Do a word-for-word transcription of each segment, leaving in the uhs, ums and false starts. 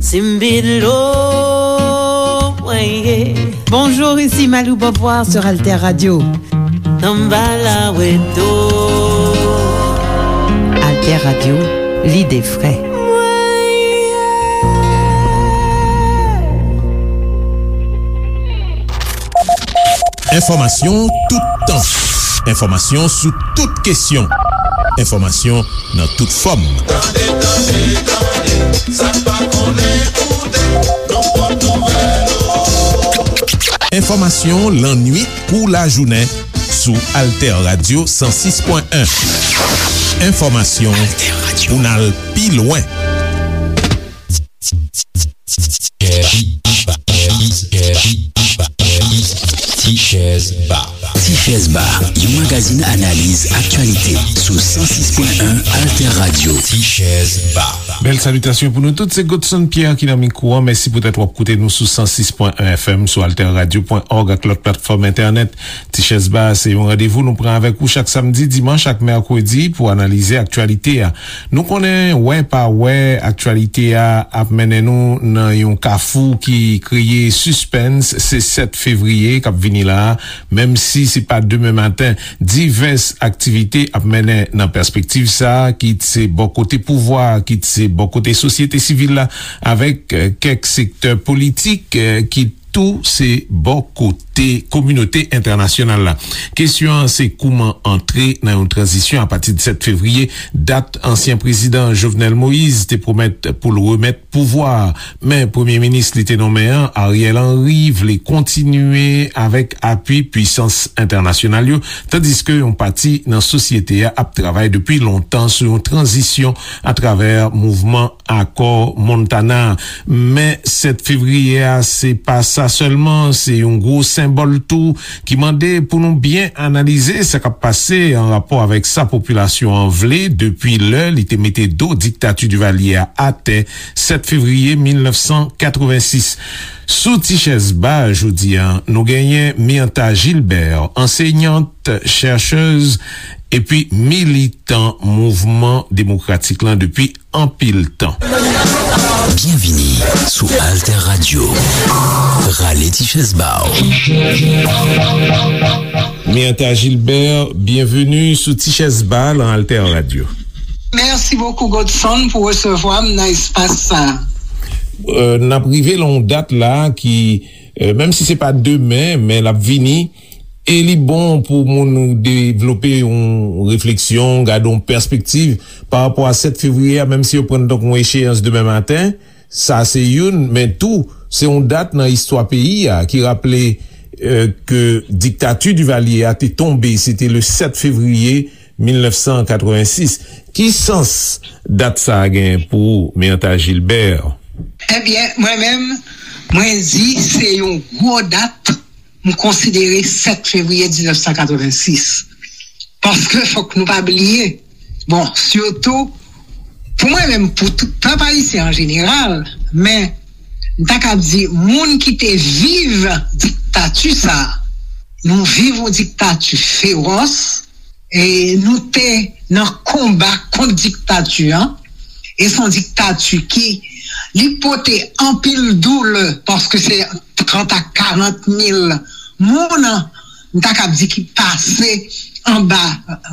Simbilo, weye. Bonjour, ici Malou Beauvoir sur Alter Radio. Tambala weto. Alter Radio, l'idée vraie. Enfòmasyon toutan. Enfòmasyon sou tout kesyon. Enfòmasyon nan tout fòm. Tande, tande, tande, sa n pa konnen, koute, nan pòt nouvèl. Enfòmasyon lannwit kou lajounen sou Alter Radio san sis pwen en. Enfòmasyon pou n al pi lwen. Tichèz Ba. Tichèz Ba, yon magazin analiz aktyalite sou san sis pwen en Alter Radio. Tichèz Ba. Bèl salitasyon pou nou tout, se Godson Pierre ki nan mikwo an. Mèsi poutèt w ap koute nou sou san sis pwen en F M, sou alter radio pwen org ak lòt platfòm entènèt. Tichèz Ba, se yon randevou nou pran avèk ou chak samdi, dimanch ak mèkredi pou analize aktyalite a. Nou konnen, wè pa wè, aktyalite a ap mennen nou nan yon kafou ki kreye sispens. Se sèt fevriye k ap vini la a, menm si se pa demen maten. Divès aktivite ap mennen nan pèspektiv sa a, kit se bò kote pouvwa a, kit se bò kote sosyete sivil la, avèk, eh, kèk sektè politik, eh, ki tou se bò kote kominote entènasyonal la. Kesyon an se kouman antre nan yon tranzisyon apati de sèt fevriye, dat ansyen prezidan Jovenel Moïse te pwomèt pou l remèt pouvwa a. Men premye minis li te nonmen an, Ariel Henry, vle kontinye avèk apui pisans entènasyonal yo, tandiske yon pati nan sosyete a ap travay depi lontan sou yon tranzisyon atravè mouvman Akò Montana. Men sèt fevriye a, se pa sa sèlman, se yon gwo senbòl tou ki mande pou nou byen analize sa k ap pase an rapò avèk sa popilasyon an vle depi lè li te mete do diktati Divalye a atè sèt fevriye mil nèf san katrevensis. Sou Tichèz Ba jodi a, nou genyen Myrtha Gilbert, ansenyant, chèchèz epi militan mouvman demokratik lan depi anpil tan. Byenvini sou Alter Radio. Rale ti chèz ba w. Myrtha Gilbert, byenveni sou Ti Chèz Ba lan Alter Radio. Mèsi bokou, Godson, pou resevwa m nan espas sa. Euh, n ap rive lan yon dat la ki, euh, menm si se pa demen, men l ap vini. E li bon pou moun devlope yon refleksyon, gade yon pèspektiv pa rapò a sèt fevriye a, menm si yo pran l tankou yon echeyans demen maten. Sa se youn, men tou, se yon dat nan istwa peyi a ki raple, euh, ke diktati Divalye a te tonbe, se te le sèt fevriye mil nèf san katrevensis. Ki sans dat sa a gen pou ou, Myrtha Gilbert? Ebyen, mwen menm, mwen di se yon gwo dat, m konsidere sèt fevriye diznèf san katrevensis. Paske fòk nou pa bliye, bon, sitou, pou mwen menm, pou tout pèp ayisyen an jeneral, men m ta ka di, moun ki te viv diktati sa a, nou viv yon diktati fewòs, e nou te nan konba kont diktati an, e se yon diktati ki, li pote anpil doulè, paske se trant a karant mil moun, m ta kab di, ki pase anba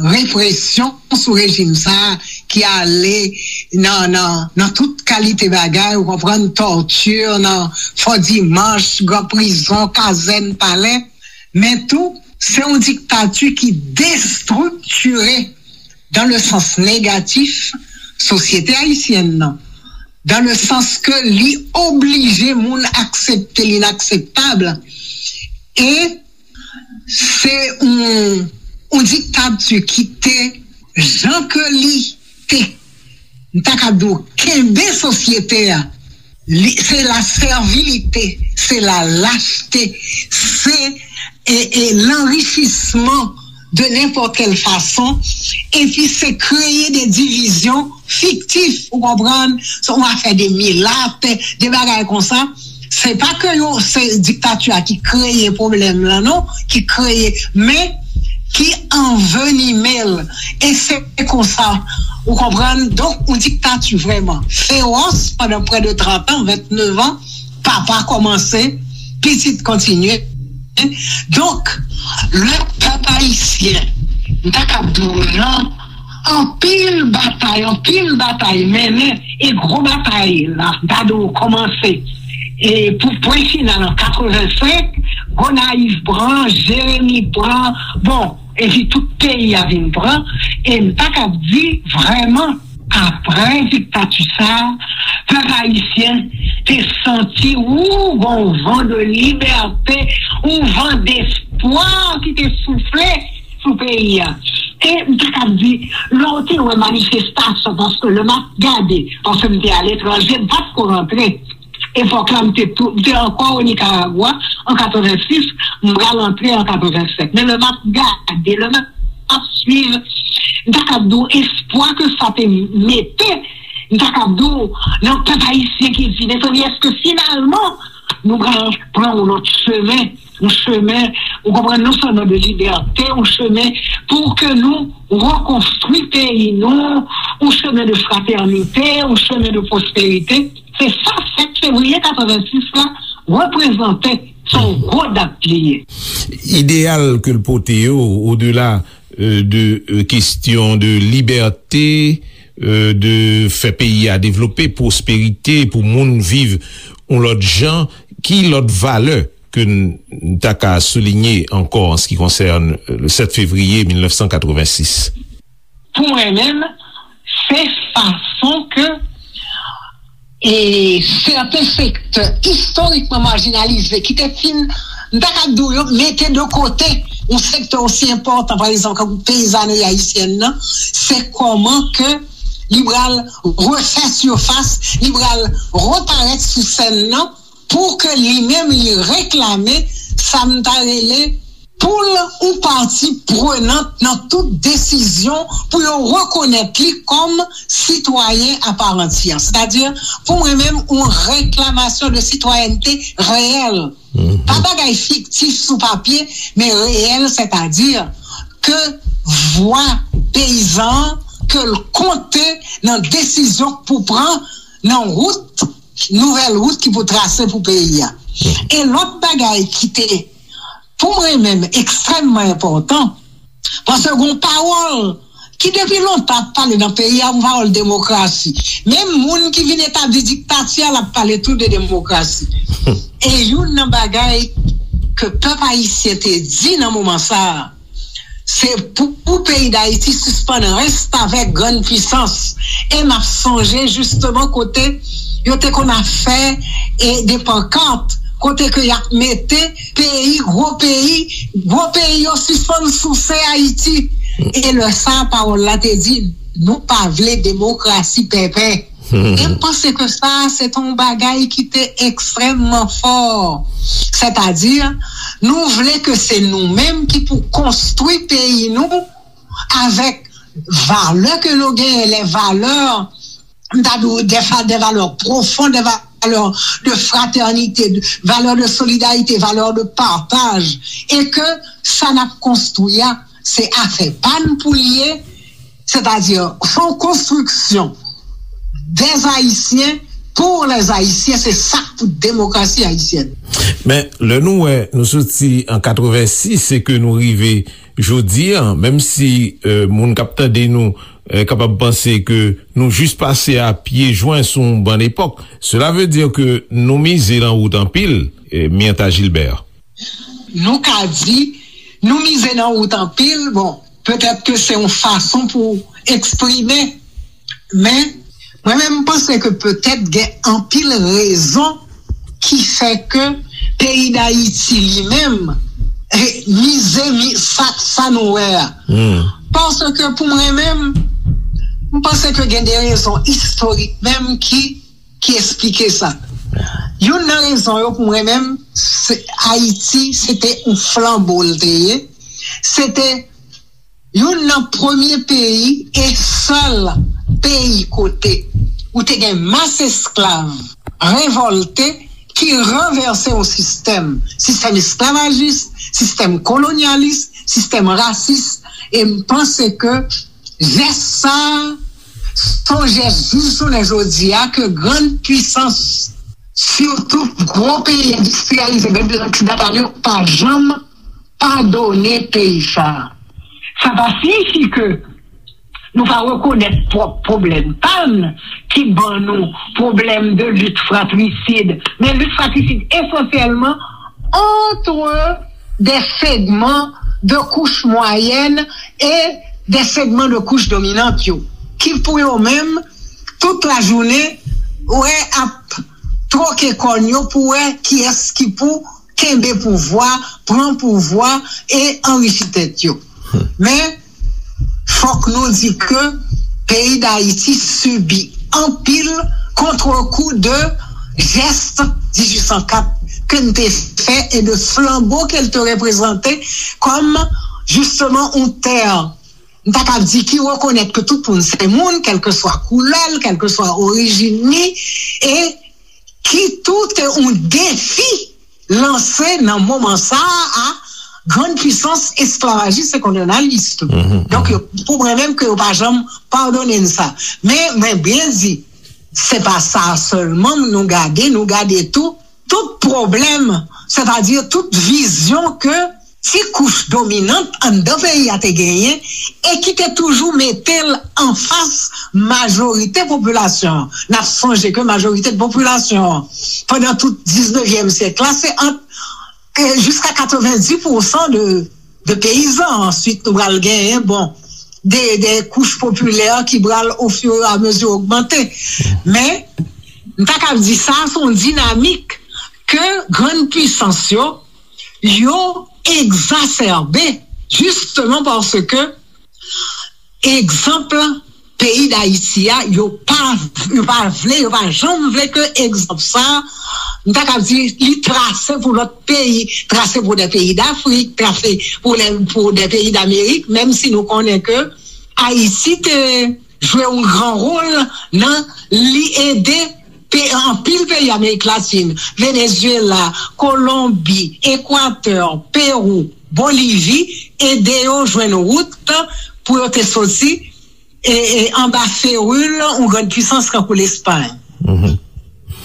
represyon sou rejim sa a, ki ale nan, nan, nan tout kalite bagay, ou konprann, tòti, nan Fò Dimanch, gran prizon, kazèn, palè, men tou, se yon diktati ki destriktire, dans le sens négatif, sosyete ayisyèn nan, dans le sens ke li oblije moun aksepte linakseptab. E se yon, yon diktati ki te, jan ke li te, m ta ka di w, kenbe sosyete a. Li, se la sèvilite, se la lachte, se, e, e, lanrichisman de nenpòt kèl fason, epi se kreye de divizyon fiktif, ou konprann, se yon afè de milat, de bagay konsa. Se pa ke yo, se diktati a ki kreye pwoblèm lan, non, ki kreye, men ki anvenime l. E se konsa, ou konprann? Donk, yon diktati vrèman fewòs pandan prè de trant an, venntenev an, papa kòmanse, pitit kontinye. Donk, le pèp ayisyen, m ta kab di w nan anpil batay, anpil batay mennen, e gwo batay la, m ta di w kòmanse. E pou pwen final an katrevensenk, Gonayiv pran, Jeremi pran, bon, epi tout peyi a vin pran, e m ta kab di vrèman, apre diktati sa a, pèp ayisyen te santi ou gon van de libète, ou van despwa ki te soufle sou peyi a. E m ta kab di, lè w te wè manifestasyon, paske lè m ap gade, paske m te aletranje, m pa t ko rantre. Epòk la, m te tou, m te ankò o Nikaragwa an katrevensis, m pral antre an katrevensenk. Men lè m ap gade, lè m ap swiv, m ta kab di w espwa ke sa te mete, m ta kab di w nan pèp ayisyen ki di, mezanmi, èske finalman nou pral pran yon lòt chemen, yon chemen, ou konprann, non sèlman de libète, yon chemen pou ke nou rekonstwi peyi nou, yon chemen de fratènite, yon chemen de pwosperite. Se sa sèt fevriye katrevensis la reprezante, se yon gwo dat li ye. Ideyal ke l pote yo, odela, euh, de, euh, kesyon de libète, euh, de fè peyi a devlope, pwosperite, pou moun viv yon lòt jan, ki lòt valè ke n, n ta ka soulinye ankò an se ki konsène, euh, le sèt fevriye mil nèf san katrevensis? Pou mwen menm, se fason ke, e, sèten sektè istorikman majinalize ki te fin, m ta ka di w, yo mete de kote yon sektè osi enpòtan, pa egzanp, tankou peyizanri ayisyèn nan, se kòman ke li pral refè sifas, li pral reparèt sou sèn nan, pou ke li menm li reklame sa m ta rele poul ou pati prenant nan tout desizyon pou yo rekonèt li kòm sitwayen a pa antiyè. Sètadi, pou mwen menm, yon reklamasyon de sitwayènte reyèl. Pa bagay fiktif sou papye, men reyèl, sètadi ke vwa peyizan an, ke l konte nan desizyon k pou pran nan wout, nouvèl wout ki pou trase pou peyi a. E lòt bagay ki te, pou mwen menm, ekstrèmman enpòtan, paske gon pawòl ki depi lontan ap pale nan peyi a, yon pawòl demokrasi. Menm moun ki vin etabli diktati a, l ap pale tou de demokrasi. E youn nan bagay ke pèp ayisyen te di nan moman sa a, se pou, pou peyi Dayiti sispann restavèk grann pwisans. E m ap sonje jisteman kote yo te konn ap fè, e, de pankat, kote ke y ap mete peyi, gwo peyi, gwo peyi yo sispann souse Ayiti. E lè sa a, pawòl la te di, nou pa vle demokrasi pèpè. E m panse ke sa a, se te yon bagay ki te ekstrèmman fò. Sètadi, nou vle ke se nou menm ki pou konstwi peyi nou avèk valè ke nou genyen, les valeurs, m ta di w, des fa-, des valeurs profondes, des valeurs de fraternité, de, valeurs de solidarité, valeurs de partage, e ke sa n ap konstwi a, se afè pa n pou l ye, sètadi, se yon konstriksyon des Haïtiens pour les Haïtiens, se sa k pou demokrasi ayisyèn. Men, lè nou wè, nou soti an katrevensis, se ke nou rive jodi a, menm si, euh, moun k ap tande nou, euh, kapab panse ke nou jis pase a pye jwen sou yon bann epòk, cela veut dire que nou mize nan wout anpil, euh, Myrtha Gilbert. Nou ka di, nou mize nan wout anpil, bon, petèt ke se yon fason pou eksprime, men mwen menm, m panse ke petèt gen anpil rezon ki fè ke peyi Dayiti li menm, eh, mize, mi-, sa, sa nou wè a. Paske pou mwen menm, m panse ke gen de rezon istorik menm ki, ki eksplike sa. Youn nan rezon yo pou mwen menm, se Ayiti, se te yon flanbo l te ye. Se te youn nan premye peyi e sèl peyi kote ou te gen mas esklav revòlte ki ranvèse yon sistèm, sistèm esklavajis, sistèm kolonyalis, sistèm rasis, e m panse ke jès sa a, s on jès jis jounen jodi a ke grann pisans, sitou gwo peyi endistriyalize, grann pisans oksidantal yo, pa janm padone peyi sa a. Sa pa siyifi ke nou pa rekonèt pwòp pwoblèm pa n ki ban nou pwoblèm de lit fratrisid, men lit fratrisid esansyèlman entre des segments de couche moyenne et des segments de couche dominante yo, ki pou yo menm, tout lajounen, wè ap twoke kòn yo pou wè kiyès ki pou kenbe pouvwa, pran pouvwa e anrichi tèt yo. Men, fòk nou di ke peyi Dayiti sibi anpil kontrekou de jès dizuit san kat ke n te fè e de flanbo ke l te reprezante kòm, jisteman, yon tè, m ta kab di, ki rekonèt ke tout moun se moun, kèlkeswa koulè l, kèlkeswa orijin li, e ki tou te yon defi lanse nan moman sa a a grann pisans esklavajis e kolonyalis tou. Donk, yo, pou mwen menm, ke yo pa janm padone n sa. Men, mwen byen di, se pa sa sèlman nou gade, nou gade tou, tout pwoblèm, sètadi tout vizyon ke ti kouch dominant anndan peyi a te genyen e ki te toujou mete l anfas majorite popilasyon an. N ap sonje ke majorite popilasyon an, pandan tout diznevyèm syèk la, se ant, e, jiska katrevenndis pousan de, de peyizan. Answit, nou pral genyen, bon, de, de kouch popilè ki pral, o fur e a mezi, ogmante. Men, m ta kab di sa, se yon dinamik ke grann pisans yo, yo egzasèbe, jisteman paske egzanp peyi Dayiti a, yo pa, yo pa vle, yo pa janm vle ke egzanp sa, m ta kab di, li trase pou lòt peyi, trase pou de peyi Dafrik, trase pou de, pou de peyi Damerik, menm si nou konnen ke Ayiti te jwe yon gran wòl nan li ede pe-, anpil peyi Amerik Latin, Venezuela, Kolonbi, Ekwatè, Pewou, Bolivi, ede yo jwenn wout pou yo te soti, e, e, anba feril yon grann pisans tankou Lespay.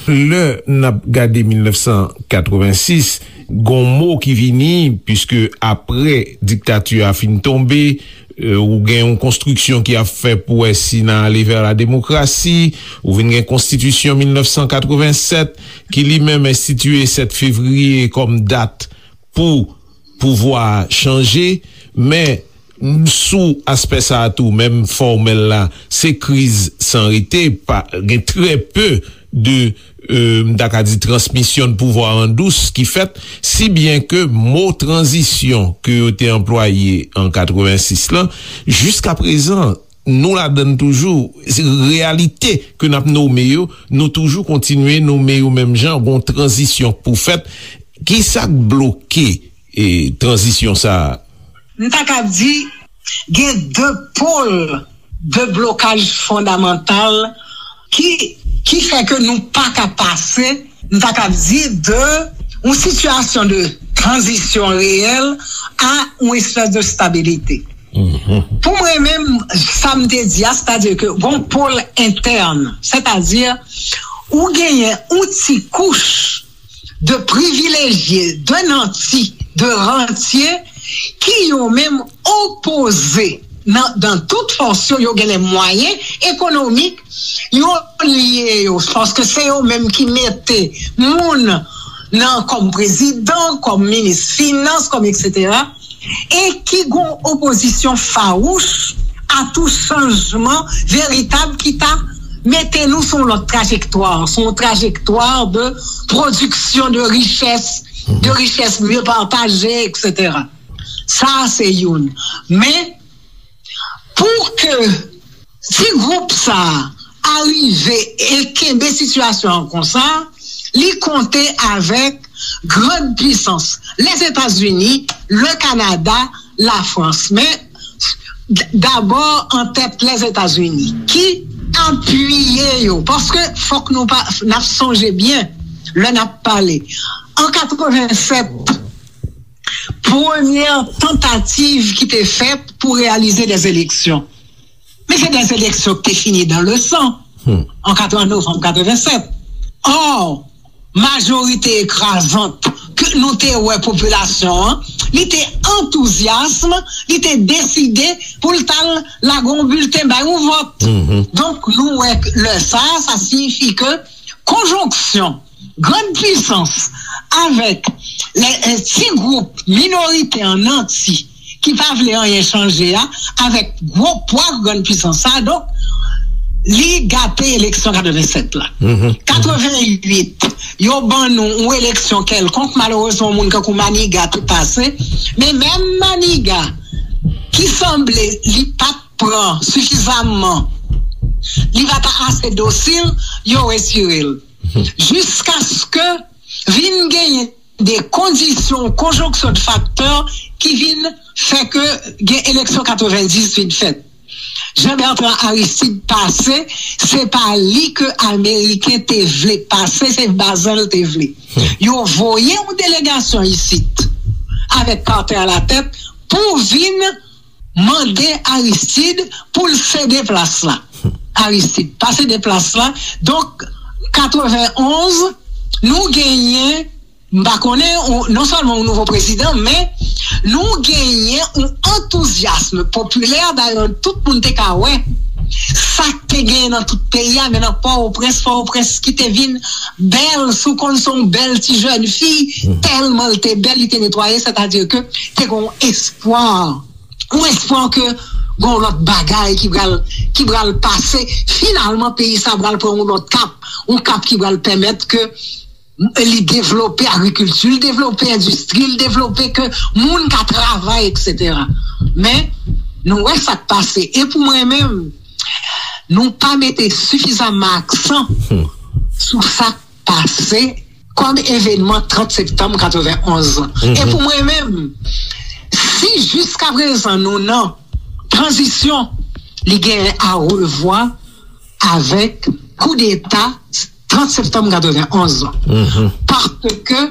Lè n ap gade mil nèf san katrevensis, gon mo ki vini, piske apre diktati a fin tonbe, e, ou gen yon konstriksyon ki ap fè pou wè si n a ale vè la demokrasi, ou vin gen konstitisyon mil nèf san katrevensèt, ki li menm enstitiye sèt fevriye kòm dat pou pouvwa a chanje, men sou aspè sa a tou, menm fòmèl la, se kriz san rete, pa, gen trè pe de, e, m ta ka di, transmisyon de pouvwa an dous ki fèt, si byen ke mo tranzisyon ke yo te anplwaye an katrevensis lan, jiska prezan, nou ladan l toujou. Se reyalite ke n ap nome yo, nou toujou kontinye nome yo menm jan, gon tranzisyon k pou fèt. Ki sa k bloke, e, tranzisyon sa a? M ta kab di, gen de pòl de blokaj fondamantal ki, ki fè ke nou pa ka pase, m ta kab di, de yon sitiyasyon de tranzisyon reyèl a yon espès de stabilite. Pou mwen menm, sa m te di a, sètadi ke gon pòl entèn, sètadi ou genyen yon ti kouch de privilejye, de nanti, de rantye ki yo menm opoze nan, nan tout fòs yo, yo gen lè mwayen ekonomik, yo lye yo, paske se yo menm ki mete moun nan kòm prezidan, kòm minis finans, kòm etsetera, e ki gon opozisyon fawouch a tou chanjman veritab ki ta mete nou sou yon lòt trajektwa, sou yon trajektwa de pwodiksyon de richès, de richès mye pataje, etsetera. Sa a se youn. Men, pou ke ti gwoup sa a arive e kenbe sitiyasyon an konsa, li konte avèk grann pisans, Lèzetazini, le Kanada, Lafrans. Men, d-, dabò an tèt Lèzetazini, ki apiye yo. Paske fòk nou pa, n ap sonje byen, lè n ap pale. An katrevennsèt, premyè tantativ ki te fèt pou reyalize dè eleksyon. Men se dè eleksyon ki te fini dan le san an novanm katrevennsèt. Ò, majorite ekrazant ke nou te wè popilasyon an, li te antouzyasm, li te deside pou l t al lage yon bilten, bay yon vòt. Donk, nou wè lè sa, sa siyifi ke konjonksyon grann pisans avèk lè, eh, ti gwoup minorite an nanti ki pa vle anyen chanje a, avèk gwo pwa grann pisans sa, donk, li gate eleksyon katrevennsèt la. Katrevenwit, yo ban nou yon eleksyon kèlkonk, malerezman, yon moun kankou Maniga te pase, men menm Maniga ki sanble li pa t pran sifizaman, li pa t ase dosil, yo retire l. Jiskaske vin genyen de kondisyon, konjonksyon de faktè ki vin fè ke gen eleksyon katrevendizuit fèt. Jean Bertrand Aristide pase, se pa li ke Ameriken te vle pase, se Bazan l te vle. Yo voye yon delegasyon isit, avèk Carter alatèt, pou vin mande Aristide pou l sede plas la. Aristide pa sede plas la. Donk, katrevenonz, nou genyen, m pa konnen, ou, non sèlman yon nouvo prezidan, men nou genyen yon antouzyasm popilè, dayè tout moun te ka wè sa k te genyen nan tout peyi a, men nan Pòtoprens, Pòtoprens ki te vin bèl, si w konn se yon bèl ti jèn fi, tèlman l te bèl, li te netwaye, sètadi ke te gen yon espwa, yon espwa ke gen yon lòt bagay ki pral, ki pral pase. Finalman, peyi sa pral pran yon lòt kap, yon kap ki pral pèmèt ke li devlope agrikilti, li devlope endistri, li devlope ke moun ka travay, etsetera. Men, nou wè sa k pase. E pou mwen menm, nou pa mete sifizaman aksan sou sa k pase kòm evenman trant septanm katrevenonz. E pou mwen menm, si jiskaprezan nou nan tranzisyon, li gen a revwa avèk koudeta trant septanm katrevenonz. Paske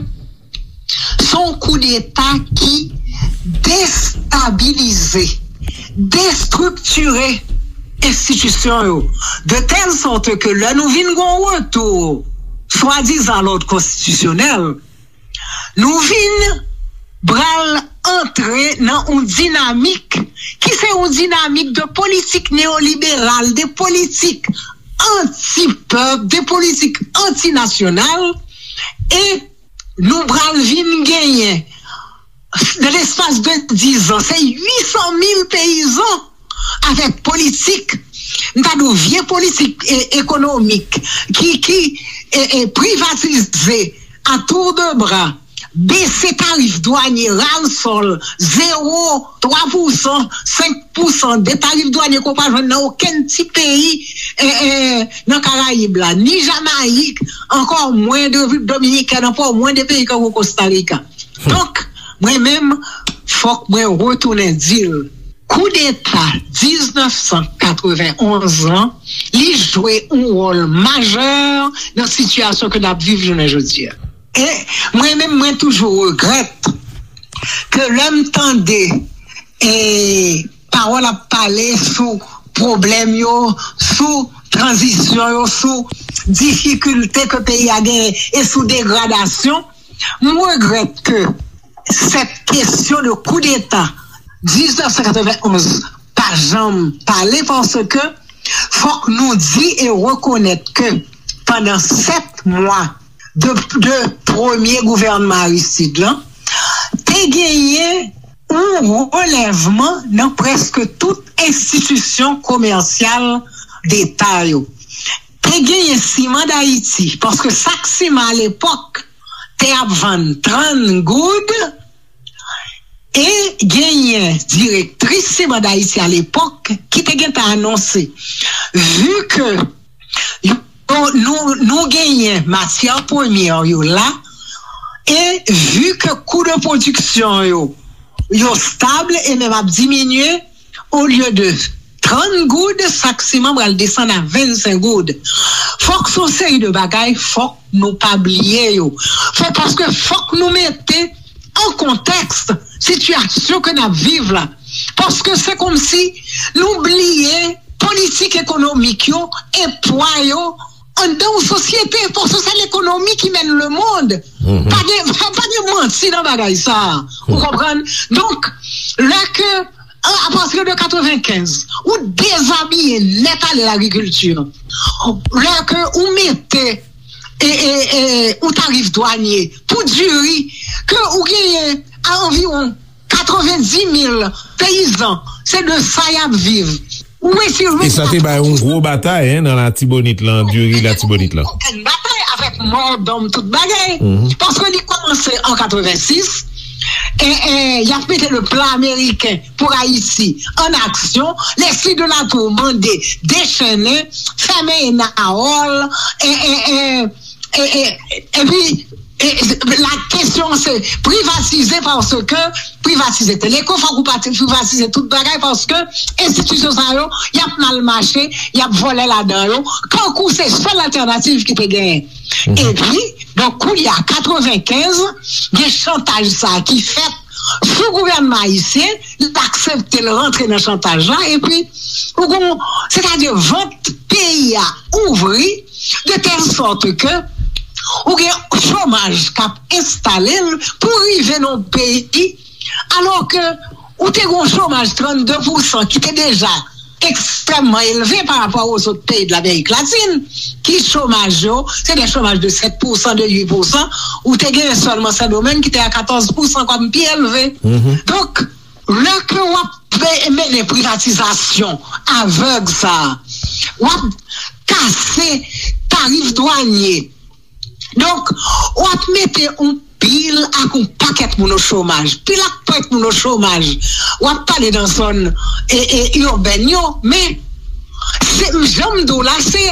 se yon koudeta ki destabilize, destriktire enstitisyon yo, de tèl sòt ke lè nou vin gen yon retou, swadizan, lòd konstitisyonèl, nou vin pral antre nan yon dinamik ki se yon dinamik de politik neyoliberal, de politik anti-pèp, de politik antinasyonal, e nou pral vin genyen, nan lespas de diz an, se uit san mil peyizan avèk politik, m ta di w, vye politik, e, ekonomik, ki, ki, e, e, privatize a tour de bras, bese tarif dwanye, ras-le-bol, zewo, twa pousan, senk pousan de tarif dwanye ke w pa jwenn nan okenn ti peyi, e, e, nan Karayib la, ni Jamayik, ankò mwen de Repiblik Dominikèn, ankò mwen de peyi tankou Kosta Rika. Donk, mwen menm, fòk mwen retounen di l, koudeta diznèf san katrevenonz lan, li jwe yon wòl majè nan sitiyasyon ke n ap viv jounen jodi a. E mwen menm, mwen toujou regrèt ke lè m tande, e, pawòl ap pale sou pwoblèm yo, sou tranzisyon yo, sou difikilte ke peyi a genyen e sou degradasyon, m regrèt ke sèt kesyon de koudeta diznèf san katrevenonz pa janm pale, paske fòk nou di e rekonèt ke pandan sèt mwa de, de premye gouvènman Aristide lan, te genyen yon relèvman nan prèske tout enstitisyon komèsyal deta yo. Te genyen Siman Dayiti, paske sak siman alepòk te ap vann trant goud, e genyen direktris Siman Dayiti alepòk ki te gentan anonse, vi ke yo, nou, nou genyen matyè premyè yo la, e vi ke kou de pwodiksyon yo, yo stab e menm ap diminye, olye de trant goud, sak siman pral desann a vennsenk goud. Fòk se yon seri de bagay, fòk nou pa bliye yo. Fò, paske fòk nou mete an kontèks sitiyasyon ke n ap viv la. Paske se kòmsi nou bliye politik ekonomik yo e pwa yo anndan yon sosyete, paske se lekonomi ki mèn lemonn. Pa gen, pa gen manti nan bagay sa a. Ou konprann? Donk, lè ke, a, apati de katrevenkenz, ou dezabiye nèt ale lagrikilti. Lè ke ou mete e, e, e, ou tarif dwanye pou diri, ke ou genyen a anviwon katrevendiz mil peyizan, se de sa y ap viv. Ou retire. E sa te bay yon gwo batay, en, nan Latibonit lan, diri Latibonit lan. Yon batay avèk mò, dòm, tout bagay. Paske li kòmanse an katrevensis, e, e, y ap mete le plan américain pour Haïti en action. Leslie de la Tour mande dechennen, fèmen Enawòl, e, e, e, e, e, epi, e, la kesyon se privatize, paske privatize Teleco, fòk ou pati privatize tout bagay, paske enstitisyon sa yo, y ap mal mache, y ap vòlè ladan yo, kankou se sèl altènativ ki te genyen. Epi, donk, kounye a, katrevenkenz, gen chantaj sa ki fèt sou gouvènman ayisyen, l aksepte l rantre nan chantaj la, epi ou gon, sètadi vant peyi a ouvri, de tèl sòt ke ou gen chomaj k ap enstale l pou rive nan yon peyi, alò ke ou te gen yon chomaj trannde pousan ki te deja ekstrèmman elve pa rapò a zòt peyi de Lamerik Latin, ki chomaj yo, se de chomaj de sèt pousan, de uit pousan, ou te gen sèlman Sendomeng ki te a katòz pousan kòm pi elve. Donk, lè ke w ap pe-, mennen privatizasyon avèg sa a, w ap kase tarif dwanye. Donk, w ap mete yon pil ak yon pakèt moun o chomaj. Pil ak pakèt moun o chomaj. W ap pale nan zòn, e, e, ibèn yo, men se, jan m di w la, se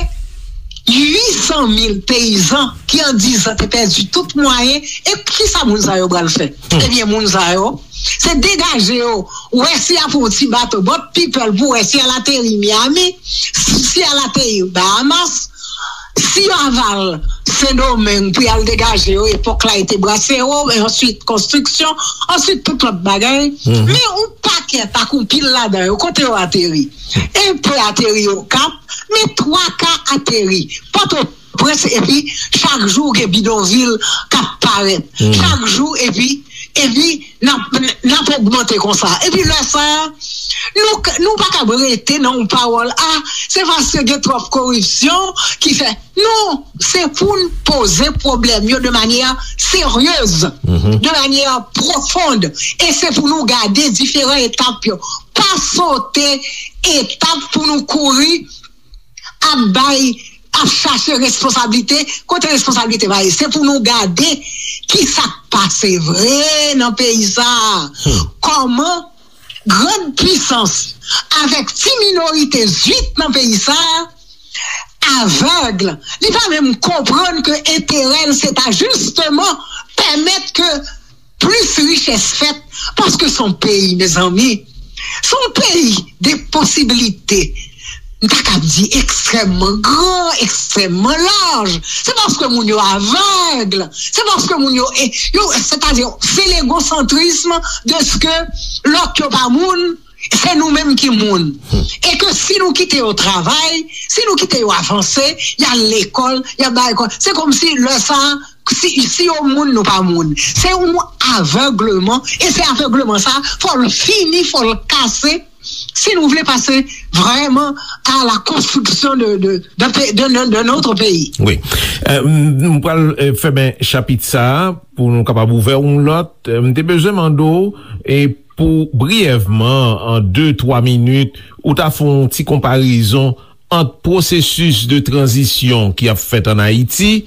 uit san mil peyizan ki an diz an te pèdi tout mwayen. E kisa moun sa yo pral fè? Ebyen, moun sa yo, se degaje yo. Ou wè si y ap yon ti bato, boat people, pou wè si y al ateri Miami, si y al ateri Bahamas, si yo aval Sendomeng pou y al degaje yo, epòk la e te brasero, e answit konstriksyon, answit tout lòt bagay. Men yon pakèt ak yon pil ladan yo, kote yo ateri? Enpe ateri Okap, men twa ka ateri Pòtoprens, epi chak jou gen bidonvil k ap parèt. Chak jou, epi, epi n ap, n ap ogmante konsa. Epi lè sa a, nou, nou pa kab rete nan yon pawòl, a, se paske gen twòp koripsyon ki fè. Non, se pou n poze pwoblèm yo de manyè seryez, de manyè pwofon, e se pou nou gade diferan etap yo. Pa sote etap pou nou kouri ap bay, ap chache responsablite, kote responsablite pa ye. Se pou nou gade ki sa k pase vre nan peyi sa a. Kòman grann pisans avèk ti minorite zwit nan peyi sa a avèg, li pa menm konprann ke enterè l se ta jisteman pèmèt ke plis richès fèt, paske se yon peyi, mezanmi, se yon peyi de posibilite. M ta kab di ekstrèmman gran, ekstrèmman laj. Se paske moun yo avèg. Se paske moun yo, e, yo, sètadi, se legosantrism de ke lòt yo pa moun, se nou menm ki moun. E ke si nou kite yo travay, si nou kite yo avanse, y al lekòl, y al bay lekòl, se kòmsi lè sa a, si, si yo moun, nou pa moun. Se yon avègleman, e se avègleman sa, fò l fini, fò l kase, si nou vle pase vrèman à la construction de, de, de, de, de, de notre pays. Wi. Euh, m, m pral, euh, fèmen chapit sa a pou nou kapab ouvè yon lòt. Euh, m te bezwen mande w, e pou briyèvman, an de, twa minit, ou ta fè yon ti konparezon ant pwosesis de tranzisyon ki ap fèt ann Ayiti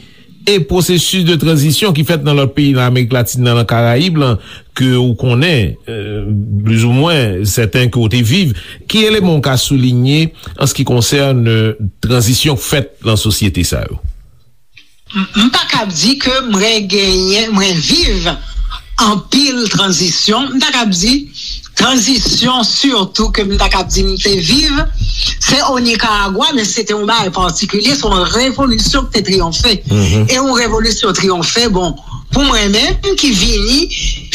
e pwosesis de tranzisyon ki fèt nan lòt peyi nan Amerik Latin nan, nan Karayib lan, ke ou konnen, euh, plizoumwen sèten ke ou te viv. Ki eleman ou ka soulinye an se ki konsène tranzisyon k fèt nan sosyete sa yo? M, m pa kab di ke mwen genyen, mwen viv anpil tranzisyon. M ta kab di, tranzisyon sitou ke m ta kab di m te viv, se o Nikaragwa, men se te yon bagay patikilye, se yon revolisyon ki te triyonfe. E yon revolisyon triyonfe, bon, pou mwen menm ki vini,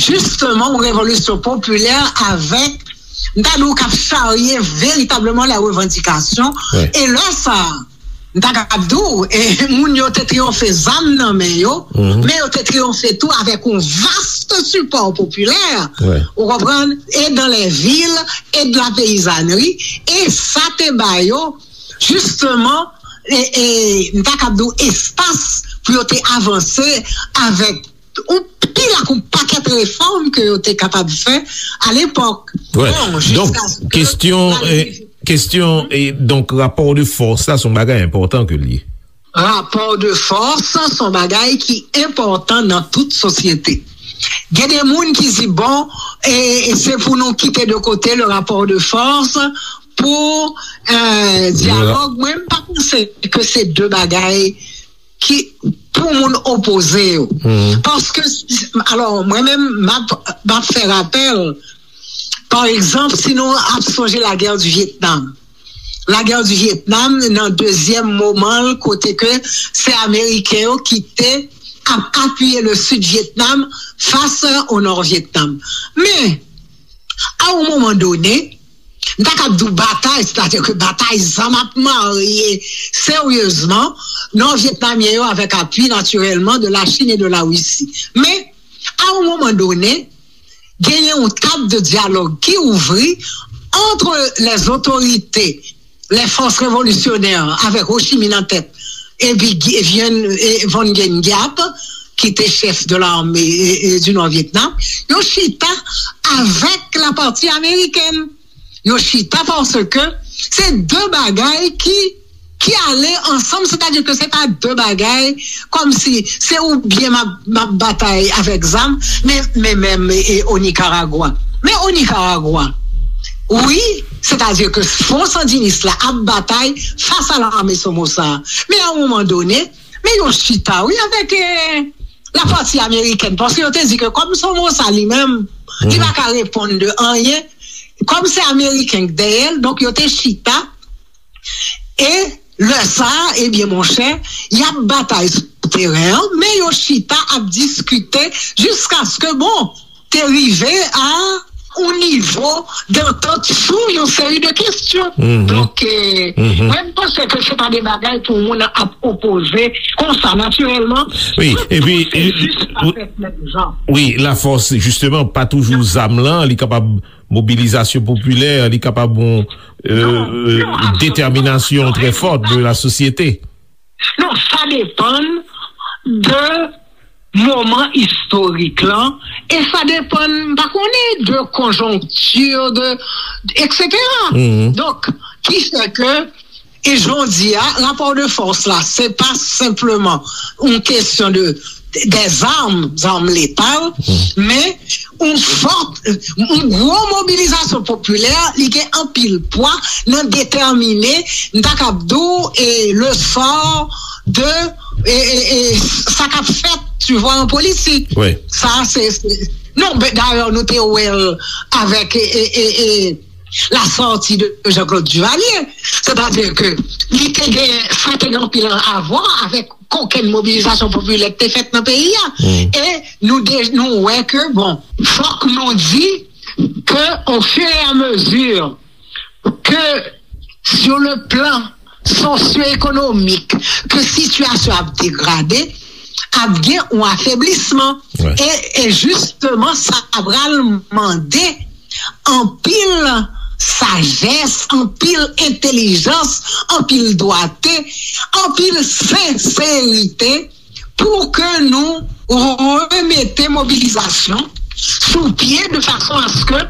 jisteman yon revolisyon popilè avèk, m ta di w, k ap charye veritableman lè revandikasyon. E lè sa a, m ta kab di w, e, moun yo te triyonfe zam nan men yo, men yo te triyonfe tou avèk yon vast sipò popilè, ou konprann, e dans les villes, e de la paysannerie, e sa te ba yo, jisteman, e, e, m ta kab di w, espas pou yo te avanse avèk yon pil ak yon pakèt refòm ke yo te kapab fè alepòk. Bon, donk, kestyon, e, kestyon, e, donk, rapò de fòs la, se yon bagay enpòtan ke l ye. Rapò de fòs, se yon bagay ki enpòtan nan tout sosyete. Gen de moun ki di, bon, e, e se pou nou kite de kote le rapport de force pou, e, dyalòg. Mwen, m pa panse ke se de bagay ki pou moun opoze yo. Paske, alò, mwen menm, m ap, m ap fè rapèl, pa egzanp, si nou ap sonje lagè di Vyetnam. Lagè di Vyetnam, nan dezyèm moman l, kote ke se Ameriken yo ki te ap apiye le Sid Vyetnam fas o Nò Vyetnam. Men, a yon moman done, m ta kab di w batay, sètadi ke batay zam ap marye seryezman Nò Vyetnamyen yo avèk apui, natirèlman, de la Chine et de la Russie. Men, a yon moman done, genyen yon tab de dyalòg ki ouvri entre les autorités, les forces révolutionnaires, avèk Ho Chi Minh an tèt, epi Vien, e, Von Nguyen Giap, ki te chèf de l'armée, e, e, du Nord Vietnam, yo chita avèk la pati amerikèn. Yo chita paske se de bagay ki, ki ale ansanm, sètadi ke se pa de bagay kòmsi se oubyen m ap, m ap batay avèk zam, men, men menm, e, o Nikaragwa. Men o Nikaragwa, wi, sètadi ke Front Sandiniste la ap batay fas a lame Somoza. Men a yon moman done, men yo chita, wi, avèk, e, la pati amerikèn, paske yo te di ke kòm Somoza li menm, li pa ka reponn de anyen, kòm se ameriken k dèyè l, donk yo te chita, e lè sa a, ebyen, monchè, y ap batay sou teren an, men yo chita ap diskite jiskaske, bon, te rive a yon nivo dantant sou yon seri de kesyon. Donk, e, mwen, m panse ke se pa de bagay pou moun ap opoze konsa, natirèlman. Wi, epi, e, wi, lafòs, jisteman, pa toujou zam lan, li kapab mobilizasyon popilè, li kapab yon, e, detèminasyon trè fòt de la sosyete. Non, sa depann de moman istorik lan, e sa depann, m pa konnen, de konjonkti, de, etsetera. Donk, ki fè ke, e jodi a, rapò de fòs la, se pa senpleman yon kesyon de, de zam, zam letal, men yon fòt, yon gwo mobilizasyon popilè, li gen anpil pwa nan detèmine, m ta kab di w, e, le sort de, e, e, e, sa k ap fèt, tu vois, an politik. Sa, se, se, non, ben, dayè, nou te wè l avèk, e, e, e, e, la sortie de Jean-Claude Duvalier. Sètadi ke li te gen, sa te gen anpil a vwa avèk kokenn mobilizasyon popilè ki te fèt nan peyi a. E nou de-, nou wè ke, bon, fòk nou di ke, au fur et à mesure ke, sur le plan sosyo-ekonomik, ke sitiyasyon ap degrade, ap gen yon afeblisman. E, e jisteman, sa pral mande anpil sajès, anpil entèlijans, anpil dwate, anpil senserite pou ke nou remete mobilizasyon sou pye de fason aske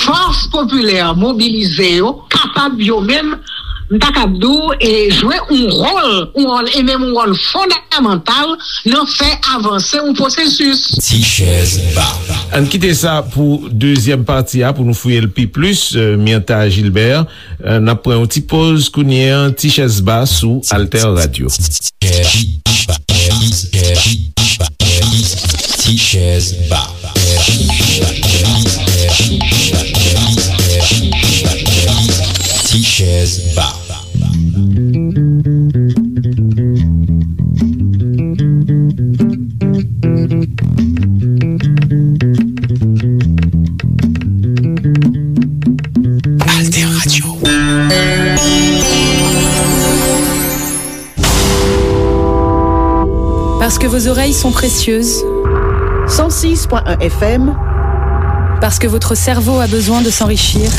fòs popilè mobilize yo kapab yo menm, m ta kab di w, e jwe yon wòl, yon wòl, e menm yon wòl fondamantal nan fè avanse yon pwosesis. Ti chèz ba. Ann kite sa pou dezyèm pati a, pou nou fouye l pi plis, e, Myrtha Gilbert. E, n ap pran yon ti poz kounye a, Ti chèz ba sou Alter Radio. Ti chèz ba. Ti chèz ba. Parce que vos oreilles sont précieuses. Cent six point un F M. Parce que votre cerveau a besoin de s'enrichir.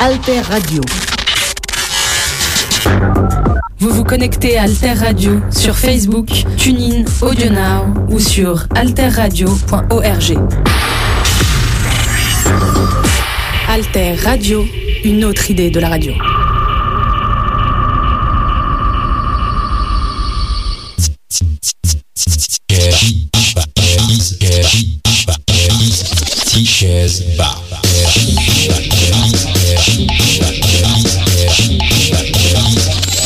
Alter Radio. Vous vous connectez à Alter Radio sur Facebook, TuneIn, AudioNow ou sur alterradio point org. Alter Radio, une autre idée de la radio. Ti chèz ba.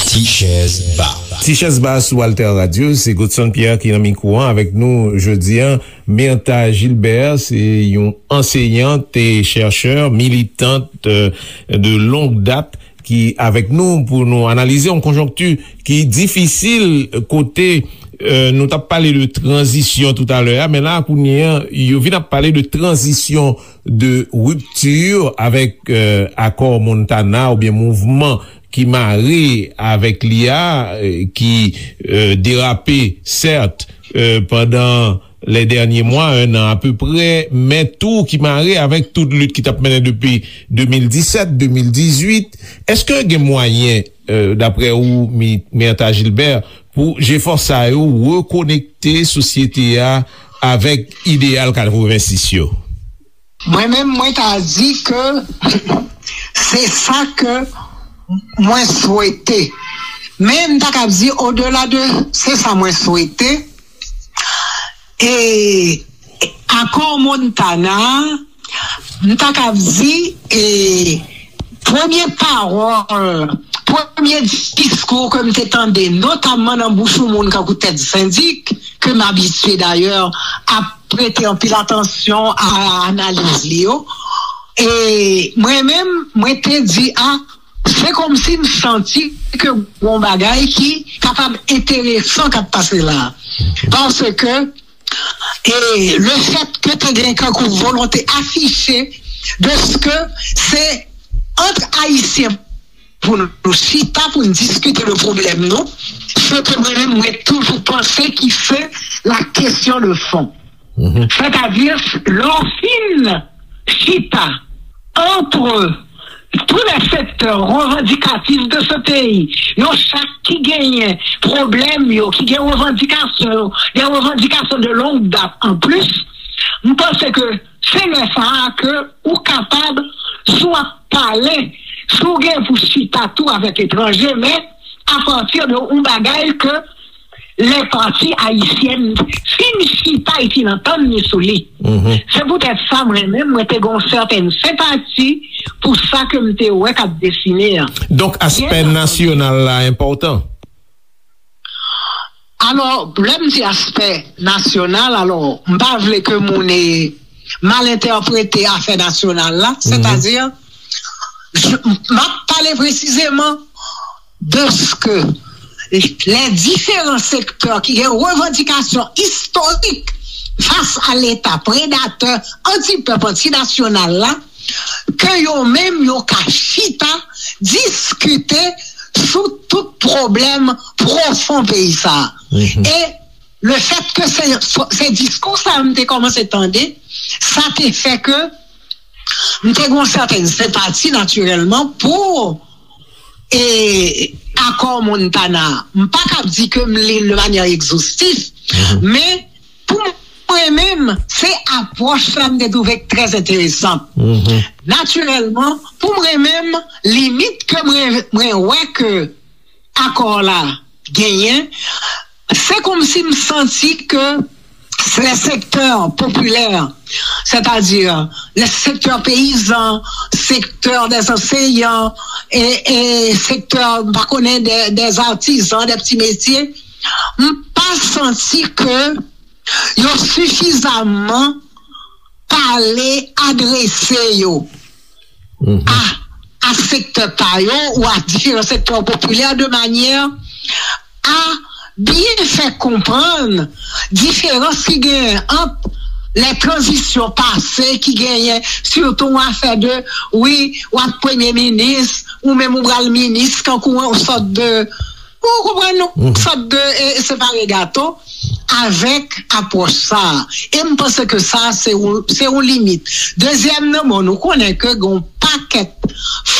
Ti chèz ba. Ti chèz ba sou Alter Radio, se Godson Pierre ki nan mikwo an avèk nou jodi a. Myrtha Gilbert, se yon anseyant e chèchè, militant, euh, de longue date ki avèk nou pou nou analize yon konjonkti ki difisil kote, euh, nou t ap pale de tranzisyon toutalè a, men la kounye a, yo vin ap pale de tranzisyon, de rupture avèk, euh, akò Montana oubyen mouvman ki mare avèk li a, euh, ki, euh, derape, sèt, euh, pandan les derniers mois, un an apeprè, men tou ki mare avèk tout lit ki t ap mennen depi de mil disèt, de mil dizuit. Èske gen mwayen, euh, daprè ou, Mi-, Myrtha Gilbert, pou jefò sa yo rekonekte sosyete a avèk ideyal katrevensis yo? Mwen menm, mwen ta di ke se sa ke mwen swete. Men m ta kab di odela de se sa mwen swete. E akò Montana, m ta kab di, e premye pawòl, premye diskou ke m te tande, notamman nan bouch yon moun kankou Tèt Sendik, ke m abitye dayè ap prete anpil atansyon a analiz li yo. E mwen menm, mwen te di, a, se kòmsi m santi ke gon bagay ki kapab enteresan k ap pase la. Paske, e le fèt ke te gen kankou volonte afiche de ke se ant Ayisyen pou nou chita, pou nou diskite de pwoblèm nou, se ke mwen menm, mwen toujou panse ki se la question de fond. Mhm. Sètadi, lè w fin chita entre tous les secteurs revendicatifs de ce pays, yo chak ki genyen pwoblèm yo, ki gen revandikasyon yo, des revendications de longue date en plus, m panse ke se lè sa a ke ou kapab, si w ap pale, si w gen pou chita tou avèk etranje, men apati de yon bagay ke lè pati ayisyèn fin chita e fin antann li sou li. Mhm. Se poutèt sa, mwen menm, mwen te gen yon sètèn senpati pou sa ke m te wè k ap desine an. Donk, aspè nasyonal la enpòtan? Alò, lè m di aspè nasyonal, alò, m pa vle ke moun, e, mal entèprete afè nasyonal la, mhm, sètadi, m ap pale presizeman de ke les différents secteurs ki gen revandikasyon istorik fas a Leta predatè, antipèp, antinasyonal la, ke yo menm yo ka chita, diskite sou tout pwoblèm pwofon peyi sa a. Mhm. E le fèt ke se, se diskou sa a m te kòmanse tande, sa te fè ke m te gen yon sètèn senpati natirèlman pou, e, akò Montana. M pa kab di ke m li l de manyè egzostif, mhm, men pou mwen menm, se apwòch sa m te twouve trè enteresan. Mhm. Natirèlman, pou mwen menm, limit ke mwen, mwen wè ke akò la genyen, se kòmsi m santi ke les secteurs populaires, c'est-à-dire le secteur paysan, secteur des enseignants, e, e secteur, m pa konnen, des, des artisans, des petits métiers, m pa santi ke yo sifizaman pale, adrese yo, mhm, a, a sektè pa yo ou a diferan sektè popilè de manyè a byen fè konprann diferans ki genyen ant lè tranzisyon pase ki genyen, sitou yon afè de, wi, w ap premye minis, ou menm ou pral minis, kankou yon sòt de, ou konprann, yon, mhm, sòt de, e, e separe gato. avèk apwòch sa a. E m panse ke sa, se yon, se yon limit. Dezyèm nan, bon, nou konnen ke gen yon pakèt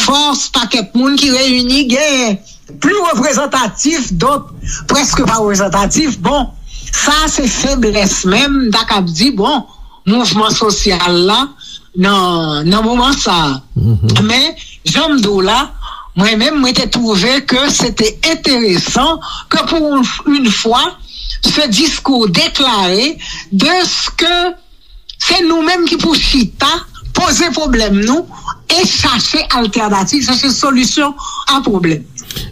fòs, pakèt moun ki reyini, gen pli reprezantatif, dòt prèske pa reprezantatif. Bon, sa se feblès menm, m ta kab di, bon, mouvman sosyal la nan, nan moman sa a. Men, jan m di w la, mwen menm, mwen te twouve ke se te enteresan ke pou yon, yon fwa, se diskou deklare de ke se nou menm ki pou chita, poze pwoblèm nou e chache altènativ, chache solisyon a pwoblèm.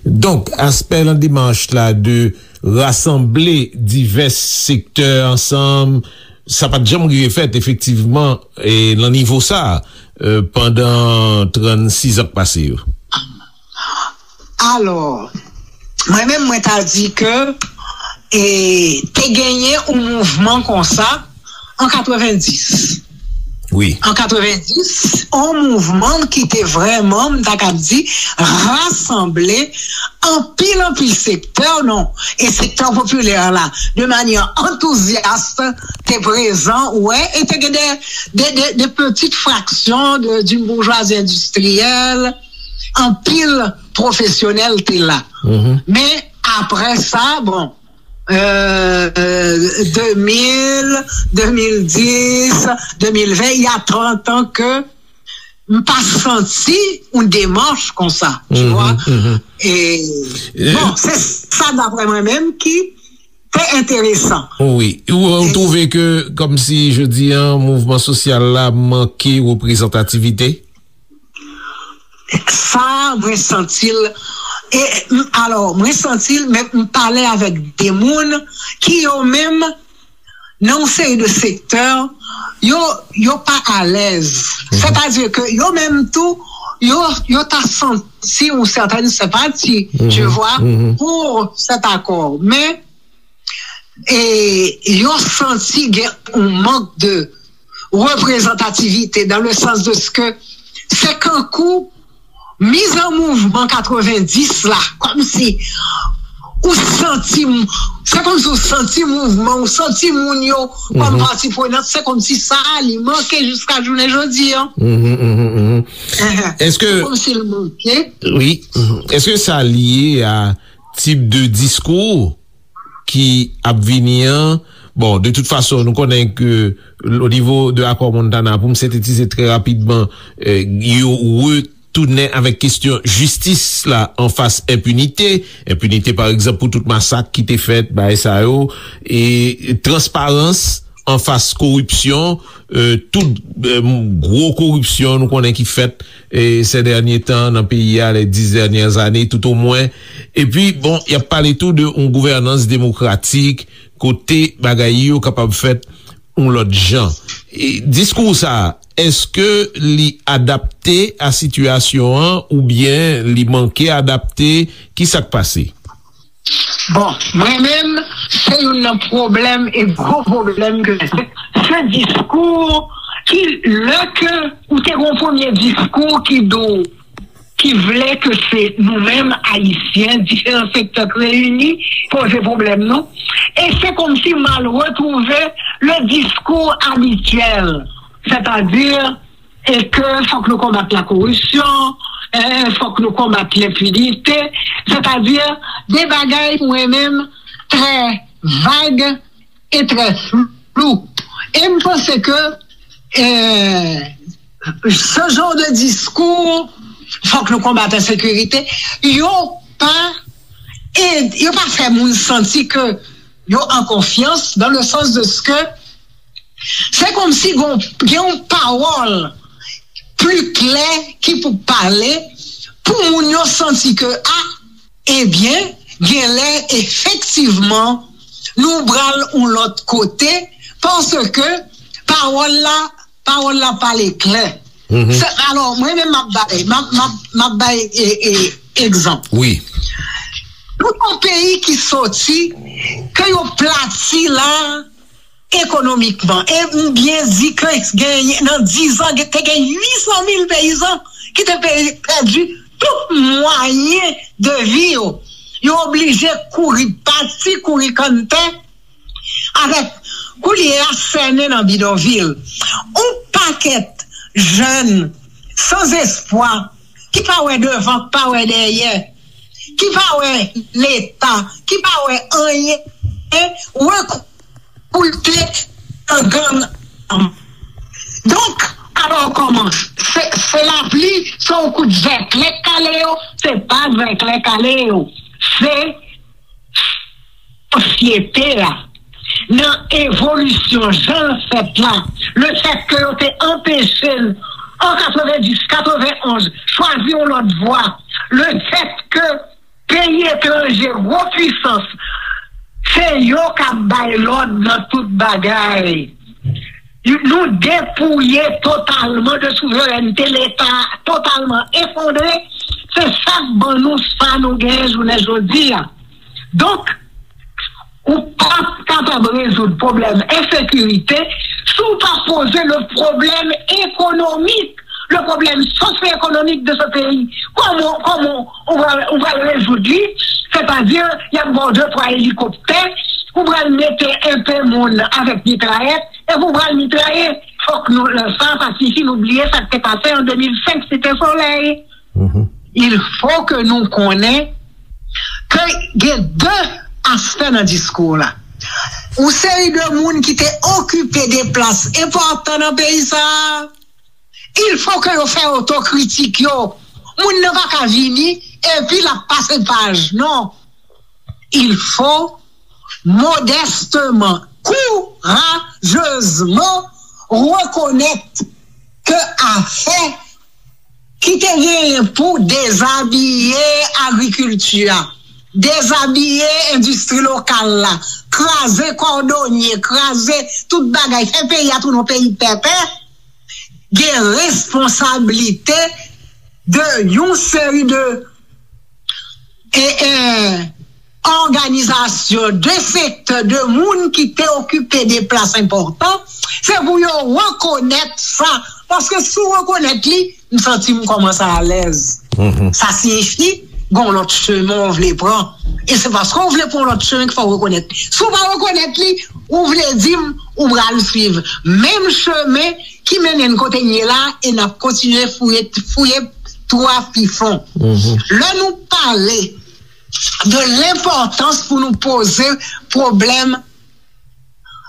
Donk, aspè nan demach la de rasanble divès sektè ansanm, sa pa t janm rive fèt efektivman e nan nivo sa a, e, pandan trannsis an k pase yo. Alò, mwen menm mwen ta di ke e, te genyen yon mouvman konsa an katrevenndis. Wi. An katrevenndis, yon mouvman ki te vrèman, m ta kab di, rasanble anpil, anpil sektè, non, e sektè popilè la, de manyè antouzyas, te prezan, wè, e te gen de, de, de, de pitit fraksyon de, d'une bourgeoisie industrielle, anpil pwofesyonèl te la. Men, apre sa, bon, euh, deux mille, deux mille dix, deux mille vingt, il y a trente ans que m pa santi yon demach konsa, tu vois. E, bon, se sa daprè mwen menm ki te enteresan. Wi. Ou, ou twouve ke, kòmsi, jodi an, mouvman sosyal la manke reprezantativite? Sa, mwen santi l. E, m, alò, mwen santi l, men m pale avèk de moun ki yo menm, nan yon seri de sektè, yo, yo pa alèz. Sètadi ke yo menm tou, yo, yo ta santi yon sètèn senpati, tu vois, pou sèt akò. Men, e, yo santi gen yon mank de reprezantativite, dans le sens de ce que se kankou miz an mouvman katrevenndis la, kòmsi ou santi, se kòmsi ou santi mouvman, ou santi moun yo kòm pati prenant, se kòmsi sa a li manke jiska jounen jodi an. Èske, kòmsi l manke. Wi. Èske sa lye a tip de diskou ki ap vini an? Bon, de tout fason, nou konnen ke o nivo de akò Montana, pou m sentetize trè rapidman, yo retounen avèk kesyon jistis la anfas enpinite. Enpinite, pa egzanp, pou tout masak ki te fèt, bagay sa yo, e transparans anfas koripsyon, tout gwo koripsyon nou konnen ki fèt e, ces derniers temps nan peyi a, les dix dernières années tout au moins. Epi, bon, y ap pale tou de yon gouvènans demokratik, kote bagay yo kapab fèt yon lòt jan. E, diskou sa a, èske li adapte a sitiyasyon an oubyen li manke adapte? Ki sa k pase? Bon, mwen menm, se youn nan pwoblèm e gwo pwoblèm ke se diskou ki, lè ke ou te gen yon premye diskou ki di w, ki vle ke se nou menm Ayisyen, diferan sektè k reyini, poze pwoblèm nou. E se kòmsi m al retwouve le diskou abityèl, sètadi e ke fòk nou konbat lakoripsyon, e fòk nou konbat lenpinite, sètadi de bagay mwen menm trè vag e trè flou. E m panse ke e, ce genre de diskou, fòk nou konbat ensekirite, yo pa e, yo pa fè moun santi ke yo an konfyans, dans le sens de ce que se kòmsi gen yon pawòl pli klè ki pou pale pou moun yo santi ke, a, ebyen, genlè efektivman nou pral yon lòt kote, paske pawòl la, pawòl la pale klè. Alò, mwen menm m ap bay, m ap, m ap, m ap bay e, e, egzanp. Wi. Nou yon peyi ki soti, ke yo plati la, ekonomikman. E m byen di ke gen, nan dizan, te gen uitsan mil peyizan ki te pèdi tout mwayen de vi yo. Yo oblije kouri pati, kouri kanntè avèk koulye a sènen nan bidonvil. Yon pakèt jèn sanzespwa ki pa wè devan, ki pa wè dèyè, ki pa wè Leta, ki pa wè anyen, rekoute nan gang. Donk, alò kòman? Se, se lapli, se yon kout zèklè k kale yo? Se pa zèklè k kale yo. Se sosyete a, nan evolisyon jan l fèt la, lefètke yo te anpeche n an katrevenndis, katrevenonz, chwazi yon lòt vwa, lefètke peyi etranje, gwo pwisans, se yo k ap bay lòd nan tout bagay. Nou depouye totalman de souverènte, Leta totalman efondre. Se sa k ban nou sa nou genyen jounen jodi a. Donk, ou p ap kapab rezoud pwoblèm ensekirite si w pa poze le problème économique, le problème socio-économique de ce pays. Kòman, kòman ou va, ou va rezoud li? Sètadi, y ap ba w de twa elikoptè, ou pral mete enpe moun avèk mitrayèt, epi ou pral mitraye. Fòk nou, lè sa, pa sifi nou bliye sa k te pase an de mil senk Site Solèy. Il faut que nou konnen ke gen de aspè nan diskou la. Yon seri de moun ki te okipe de plas enpòtan nan peyi sa a, il faut que yo fè otokritik yo. Moun nan pa ka vini epi l ap pase paj, non. Il faut modestement, courageusement reconnaître que afè ki te genyen pou dezabiye agrikilti a, dezabiye endistri lokal la, kraze kòdonye, kraze tout bagay, fè peyi a tounen yon peyi pèpè, gen responsablite de yon seri de e, e, òganizasyon, de sektè, de moun ki te okipe de plas enpòtan, se pou yo rekonèt sa. Paske si w rekonèt li, m santi m kòmanse alèz. Sa siyifi, gon lòt chemen w vle pran. E se paske w vle pran yon lòt chemen ki fè w rekonèt. Si w pa rekonèt li, ou vle di m, ou pral swiv menm chemen ki mennen n kote n ye la, e n ap kontinye fouye, fouye twou a pi fon. Lè nou pale de lenpòtans pou nou poze pwoblèm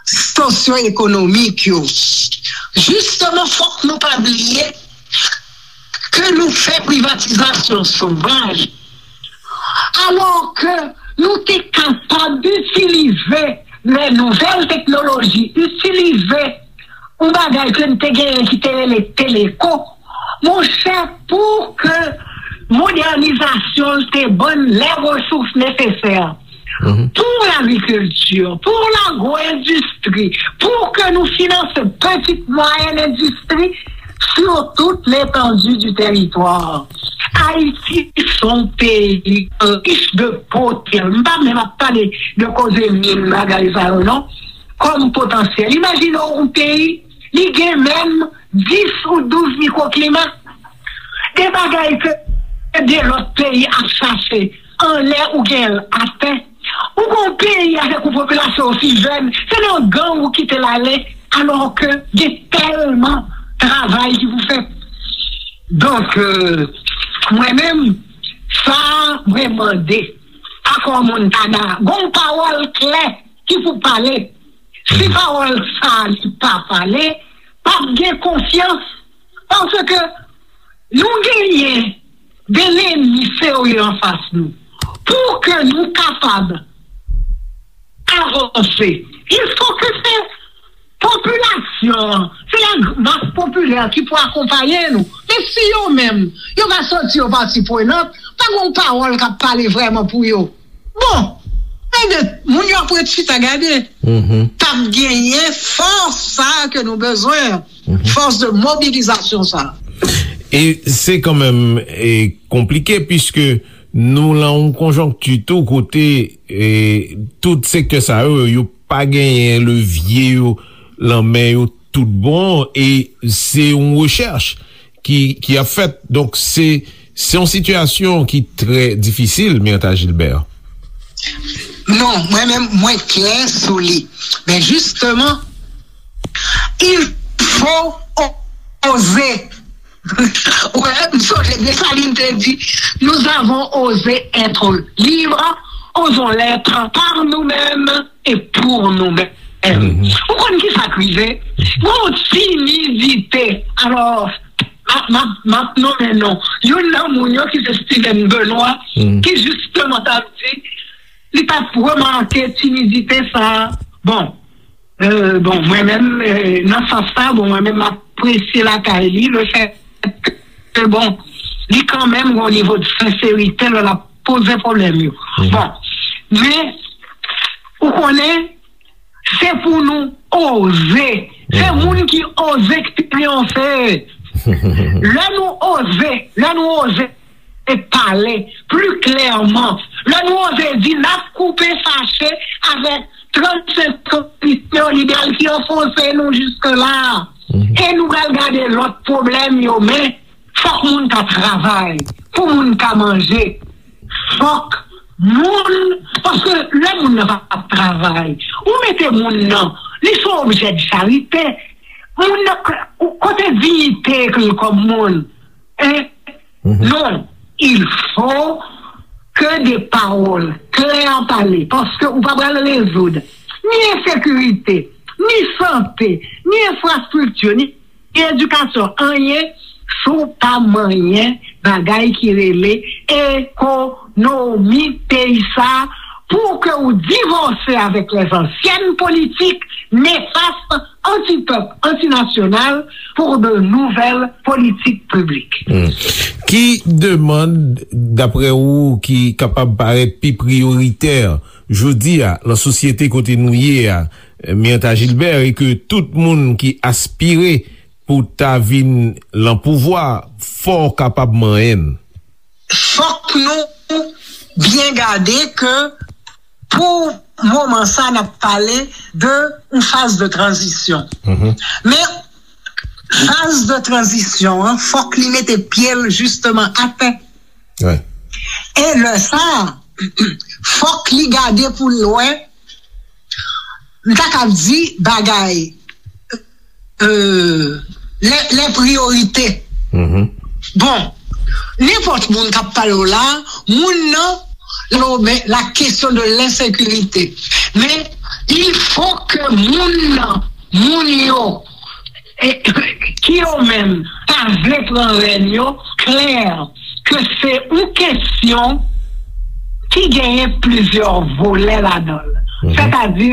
sosyo-ekonomik yo, jisteman, fòk nou pa bliye ke nou fè privatizasyon sovaj, alò ke nou te kapab itilize lè nouvèl teknoloji, itilize yon bagay ke n te genyen ki te rele teleko, monchè, pou ke modènizasyon l te ban n lè resous nesesè pou lagrikilti, pou lagwo-endistri, pou ke nou finanse pitit, mwayèn endistri sur toute l'étendue du territoire. Ayiti se yon peyi rich de potansyèl. M pa menm ap pale de koze min, bagay sa yo, non. Kòm potansyèl. Imajine w yon peyi, li gen menm dis ou douz mikwoklima. De bagay ke de lòt peyi ap chache anlè ou gen l atè. Ou gon peyi avèk yon popilasyon osi jèn, se nan gang ou kite l ale, alò ke gen tèlman travay ki pou fèt. Donk, euh, mwen menm, sa mwen mande Akò Montana, gon pawòl klè ki pou pale. Si pawòl sa li pa pale, p ap gen konfyans, paske nou genyen de lènmi serye anfas nou. Pou ke nou kapab avanse, il faut que se popilasyon an, se la mas popilè ki pou akonpaye nou. Men si yo menm, yo pa santi yo pati prenant, pa gen yon pawòl k ap pale vrèman pou yo. Bon, enben, moun yo ap ret chita gade. P ap genyen fòs sa a ke nou bezwen an, fòs de mobilizasyon sa a. E se kanmenm, e, konplike, piske nou lan yon konjonkti tou kote, e, tout sektè sa yo, yo pa genyen levye yo lan men yo tout bon, e se yon rechèch ki, ki ap fèt. Donk, se, se yon sitiyasyon ki trè difisil, Myrtha Gilbert. Non, mwen menm, mwen klè sou li. Men jisteman, il faut oser. Wè, m sonje Desalin te di, nous avons osé être libres, osons l'être par nous-mêmes et pour nous-mêmes. Ou konn ki sa k rive? Gon timidite. Alò, m ap, m ap, m ap nonmen non. Youn nan moun yo ki se Steven Benoît, ki jisteman t ap di, li t ap remake timidite sa a. Bon, euh, bon, mwen menm, euh, nan sans sa, bon, mwen menm, m apresye lakay li, le fait que, bon, li kanmenm gon nivo de senserite lè l ap poze pwoblèm yo. Bon, men, ou konnen, se pou nou oze. Se moun ki oze ki triyonfe. Lè nou oze, lè nou oze pale pli klèman, lè nou oze di n ap koupe fache avèk trannsenk kondisyon libèral ki anfonse nou jiske la, e nou pral gade lòt pwoblèm yo, men fòk moun ka travay, pou moun ka manje. Fòk moun, paske lè moun nan pa ap travay, ou mete moun nan, li se yon objè de charite. Moun nan, kote diyite l kòm moun? Hein? Non, il faut que des paroles claires pale, paske ou pa pral rezoud ni ensekirite, ni sante, ni enfrastrikti, ni edikasyon, anyen, si w pa manyen bagay ki rele ekonomi peyi sa, pou ke w divòse avèk les anciennes politiques néfastes, anti-peuple, antinasyonal, pour de nouvelles politiques publiques. Ki demann, daprè ou, ki kapab parèt pi priyoritè jodi a nan sosyete kote nou ye a, Mirtha Gilbert, e ke tout moun ki aspire pou ta vin lan pouvwa, fò w kapab manyen l? Fòk nou byen gade ke pou moman sa n ap pale de yon faz de tranzisyon. Men faz de tranzisyon an, fòk li mete pye l jisteman atè. E lè sa, fòk li gade pou l wè, m ta kab di bagay, euh, les, les priorités. Bon, nenpòt moun k ap pale w la, moun nan, lo, men, la question de l'insécurité. Men, il faut que moun nan, moun yo, e, ki yo menm pa vle pran rèn yo, klè ke se yon kesyon ki genyen plizyè volè ladan l. Sètadi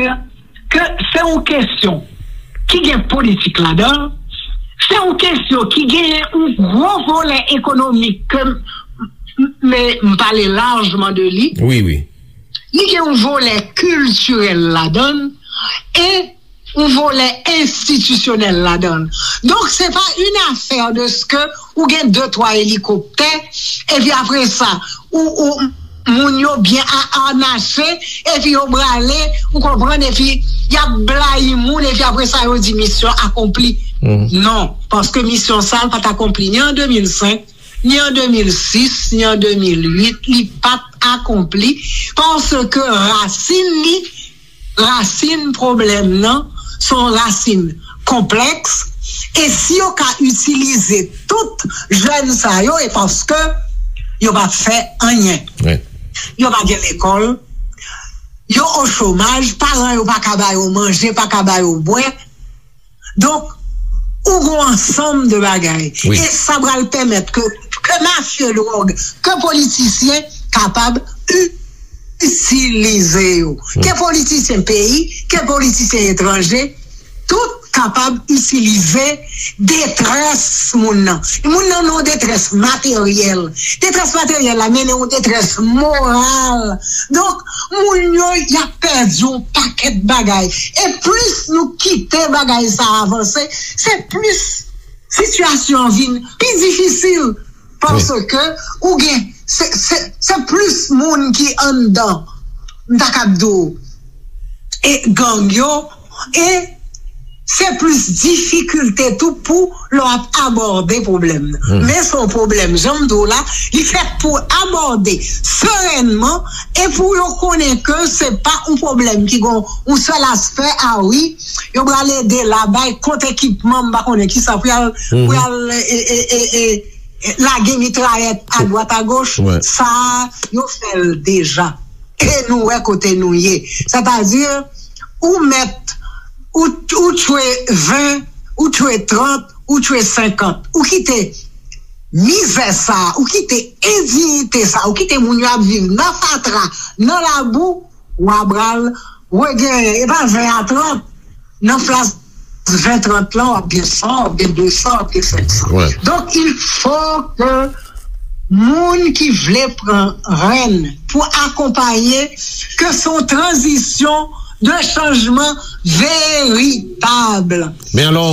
ke se yon kesyon ki gen politik ladan l, se yon kesyon ki genyen yon gwo volè ekonomik ke m, m, m pale lajman de li. Wi, wi. Li gen yon volè kiltirèl ladan l e yon volè enstitisyonèl ladan l. Donk, se pa une affaire de ce que ou gen de twa elikoptè, epi apre sa, ou, ou, moun yo byen a, anache, epi yo brale, ou konprann, epi y ap blayi moun, epi apre sa, yo di misyon akonpli. Non, paske misyon sa, l pa t akonpli ni an de mil senk, ni an de mil sis, ni an de mil uit, li pa t akonpli, paske rasin li, rasin pwoblèm nan, se yon rasin konplèks, e si yo ka itilize tout jèn sa yo, e paske yo p ap fè anyen. Yo pa gen lekòl, yo o chomaj, paran yo pa ka ba yo manje, pa ka ba yo bwè. Donk, ou gon ansanm de bagay. E sa pral pèmèt ke, ke mafya dwòg, ke politisyen kapab itilize yo. Ke politisyen peyi, ke politisyen etranje, tout kapab itilize detrès moun nan. Moun nan nan yon detrès materyèl. Detrès materyèl la mennen yon detrès moral. Donk, moun yo, y ap pèdi yon pakèt bagay. E plis nou kite bagay sa avanse, se plis sitiyasyon an vin pi difisil. Paske ou gen, se, se, se plis moun ki anndan, m ta kab di w, e gang yo, e se plis difikilte tou pou lè w ap abòde pwoblèm nan. Men se yon pwoblèm, jan m di w la, li fèt pou abòde serènman e pou yo konnen ke se pa yon pwoblèm ki gen yon sèl aspè, a wi, yo pral ede la, bay kont ekipman, m pa konnen kisa, pou y al, pou y al, e, e, e, e, lage mitrayèt adwat agoch, sa a, yo fè l deja. E nou wè kote nou ye. Sètadi, ou mèt, ou, ou tchwe ven, ou tchwe trant, ou tchwe senkant. Ou kite mizè sa a, ou kite endiyite sa a, ou kite moun yo ap viv nan fatra, nan labou, w a pral regenyen. E pa ven a trant, nan plas ven trant lan, w ap gen san, w ap gen de san, w ap gen senk san. Donk, il faut que moun ki vle pran rèn pou akonpaye, ke se yon tranzisyon de chanjman veritab. Men alò,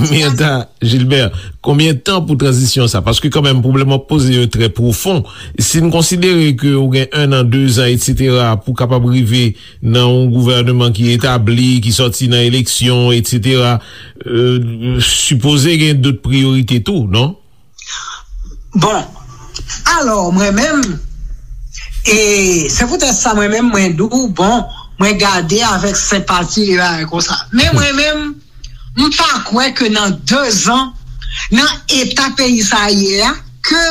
Mirtha Gilbert, konbyen tan pou tranzisyon sa? Paske kanmenm, pwoblèm w ap poze yo trè pwofon. Si n konsidere ke ou gen en an, de zan, etsetera, pou kapab rive nan yon gouvèneman ki etabli, ki sòti nan eleksyon, etsetera, euh, sipoze gen dòt priyorite tou, non? Bon, alò, mwen menm, e se poutèt sa mwen menm, mwen di w, bon, mwen gade avèk senpati e bagay konsa. Men mwen menm, m pa kwè ke nan de zan, nan eta peyi sa a ye a, ke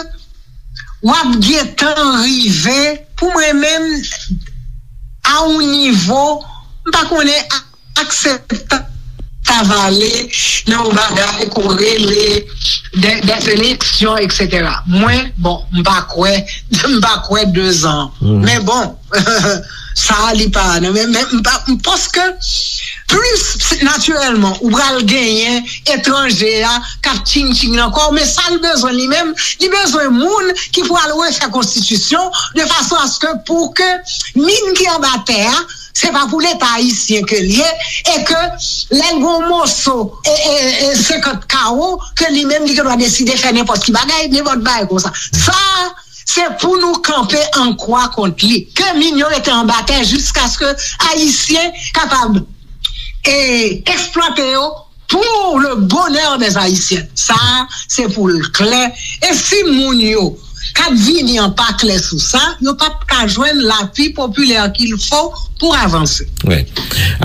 w ap gentan rive, pou mwen menm, a yon nivo, m pa konnen, akseptab ta vale nan yon bagay ke w rele de, des élections, etsetera. Mwen, bon, m pa kwè, m pa kwè de zan. Men bon, sa a li pa, non, men, men m pa, m panse ke plis natirèlman, ou pral genyen etranje a k ap tching tching nan kò w, men sa l bezwen li menm, li bezwen moun ki pral refè konstitisyon de fason aske pou ke min ki anba tè a, se pa pou Leta ayisyen ke l ye, e ke lè l gen yon moso, e, e, e senkant kawo, ke li menm li gen dwa deside fè nenpòt ki bagay, nenpòt bagay konsa. Sa, se pou nou kanpe an kwa kont li. Ke min yo rete anba tè jiskaske ayisyen kapab, e, eksplwate yo pour le bonheur des Haïtiens. Sa, se pou l klè. E si moun yo k ap vini an pa klè sou sa, yo p ap ka jwenn lapi popilè qu'il faut pour avanse. Wi.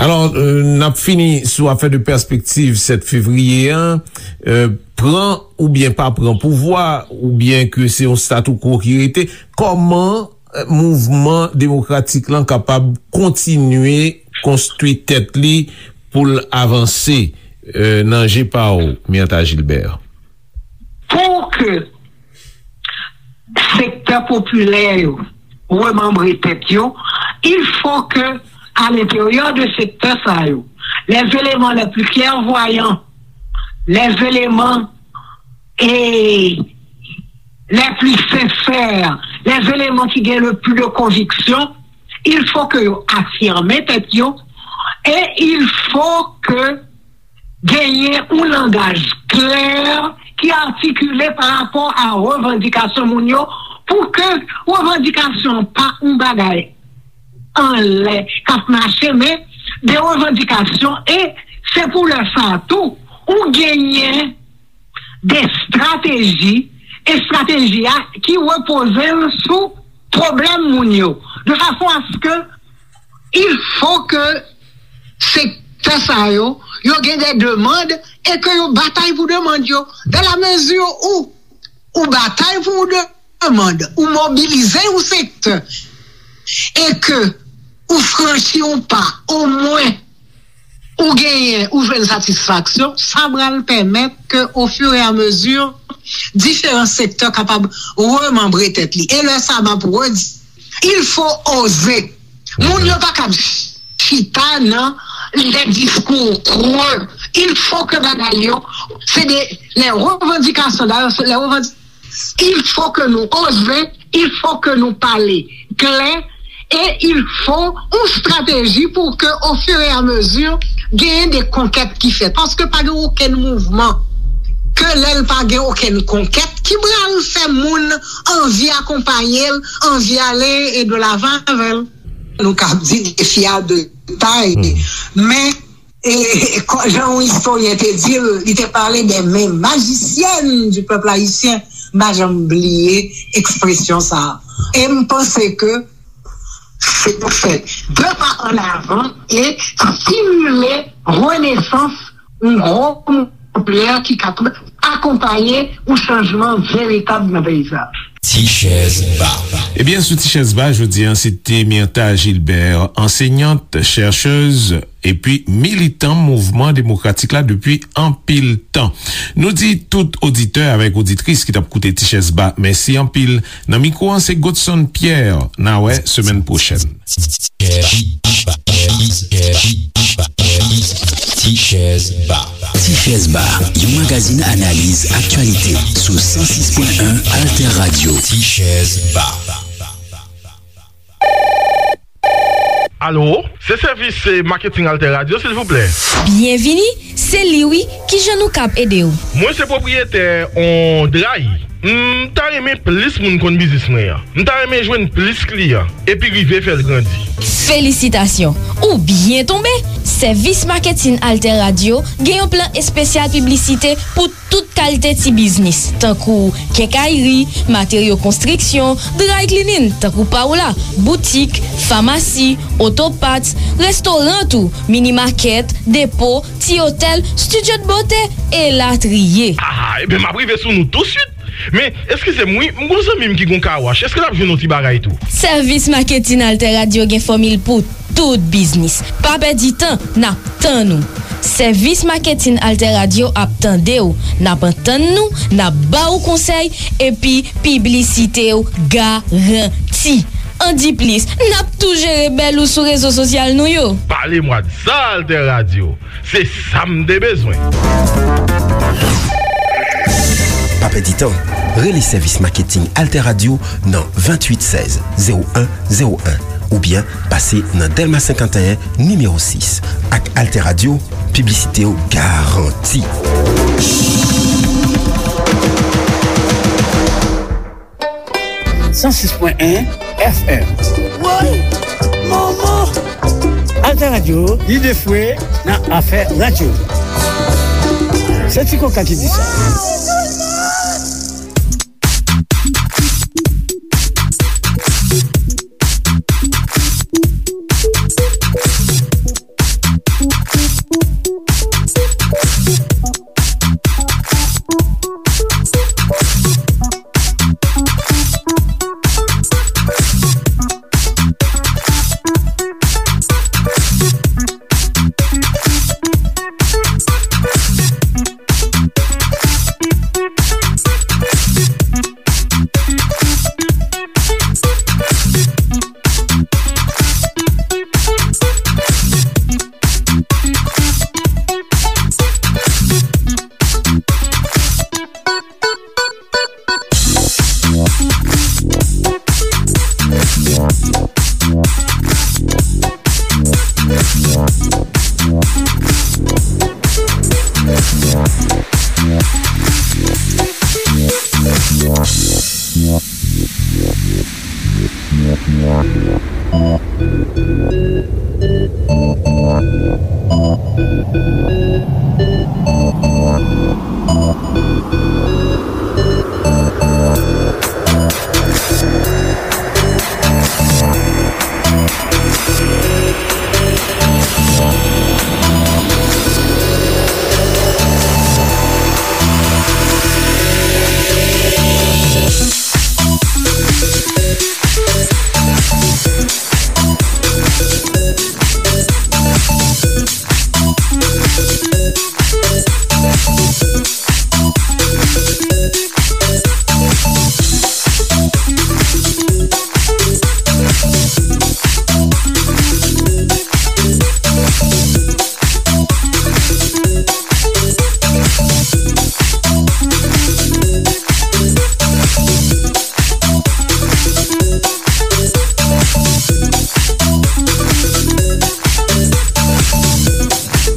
Alò, euh, n ap fini sou afè de pèspektiv sèt fevriye an. Euh, pran oubyen pa pran pouvwa, oubyen ke se yon statu quo ki rete, kòman, euh, mouvman demokratik lan kapab kontinye konstwi tèt li pou l avanse, euh, nan je pa w, Myrtha Gilbert? Pou ke sektè popilè yo remanbre tèt yo, il faut que, à l'intérieur de sektè sa yo, les éléments les plus clairvoyants, les éléments, et les plus sincères, les éléments qui gagnent le plus de conviction, il faut que yo afirme tèt yo, et il faut que genyen yon langaj klè ki atikile pa rapò a revandikasyon moun yo, pou ke revandikasyon pa yon bagay anlè k ap mache, men de revandikasyon, e se pou lè sa a tou, ou genyen de estrateji, estrateji a ki repoze l sou pwoblèm moun yo, de fason aske il faut que sektè sa yo, yo gen de demann e ke yo batay pou demann yo. Dans la mesure où ou batay pou yon demann, ou mobilize yon sektè, e ke ou franchi yon pa, omwen ou genyen, ou jwenn satisfaksyon, sa pral pèmèt ke, au fur et à mesure, diferan sektè kapab remanbre tèt li. E lè sa, m ap redi, il faut oser. Moun yo pa kab chita nan les discours creux. Il faut que bagay yo, se de, les revendications, d'ailleurs, c'est les revendications, il faut que nou oze, il faut que nou pale klè, e il faut yon strateji pou ke, au fur et à mesure, genyen de konkèt ki fèt. Paske pa gen okenn mouvman ke lè l pa gen okenn konkèt ki pral fè moun anvi akonpaye l, anvi ale e de lavan avè l. Nou ka di defi a de tay, men E, e, kò-, jan yon istoryen te di l, li te pale de men majisyen du peuple haïtien. M pa janm bliye ekspresyon sa a. E m panse ke se pou fè de pa an avan e stimile renesans yon gwo mouvman popilè ki kapab akonpaye yon chanjman veritab nan peyi sa. Ti chèz ba. Ebyen, sou Ti chèz ba, jodi a, se te Myrtha Gilbert, ansenyant, chèchèz, epi militan mouvman demokratik la depi anpil tan. Nou di tout oditè avèk oditris ki t ap koute Ti chèz ba, mèsi anpil. Nan mikwo an, se Godson Pierre. N a wè semèn pwochèn. Ti chèz ba. Ti chèz ba, yon magazin analiz aktyalite sou san sis pwen en Alter Radio. Ti chèz ba. Alo, se sèvis, eh, maketing Alter Radio, silvouplè. Byenvini, se li wi, kijan nou kab ede w? Mwen se pwopriyetè on dray. M ta renmen plis moun konn biznis mwen an. M ta renmen jwenn plis kliyan, epi rive fè l grandi. Felisitasyon! Ou byen tonbe! Sèvis maketin Alter Radio gen yon plan espesyal piblisite pou tout kalite ti biznis, tankou kenkayri, materyo konstriksyon, dry cleaning, tankou pa w la, boutik, famasi, oto parts, restoran tou, mini market, depo, ti otèl, studio de beauté, elatriye. Ah, ebyen, m ap rive sou nou tousuit. Men, eskize m wi, m gon zanmi m ki gon car wash. Èske l ap jwenn yon ti bagay tou? Sèvis maketin Alter Radio gen fòmil pou tout biznis. Pa pèdi tan, n ap tann ou. Sèvis maketin Alter Radio ap tande w, n ap antann nou, n ap ba w konsèy, epi piblisite w garanti. Andiplis, n ap tou jere bèl ou sou rezo sosyal nou yo. Pale mwa de sa, Alter Radio. Se sa m te bezwen. Pa pèdi tan, rele sèvis maketing Alter Radio nan venntuit sèz zewo en zewo en oubyen pase nan Dèlma senkanteyen, nimewo sis. Ak Alter Radio, piblisite w garanti. San sis pwen en F M. Woy! Manman! Alter Radio, lide fwe nan afè radyo. Se Ti Koka ki di sa.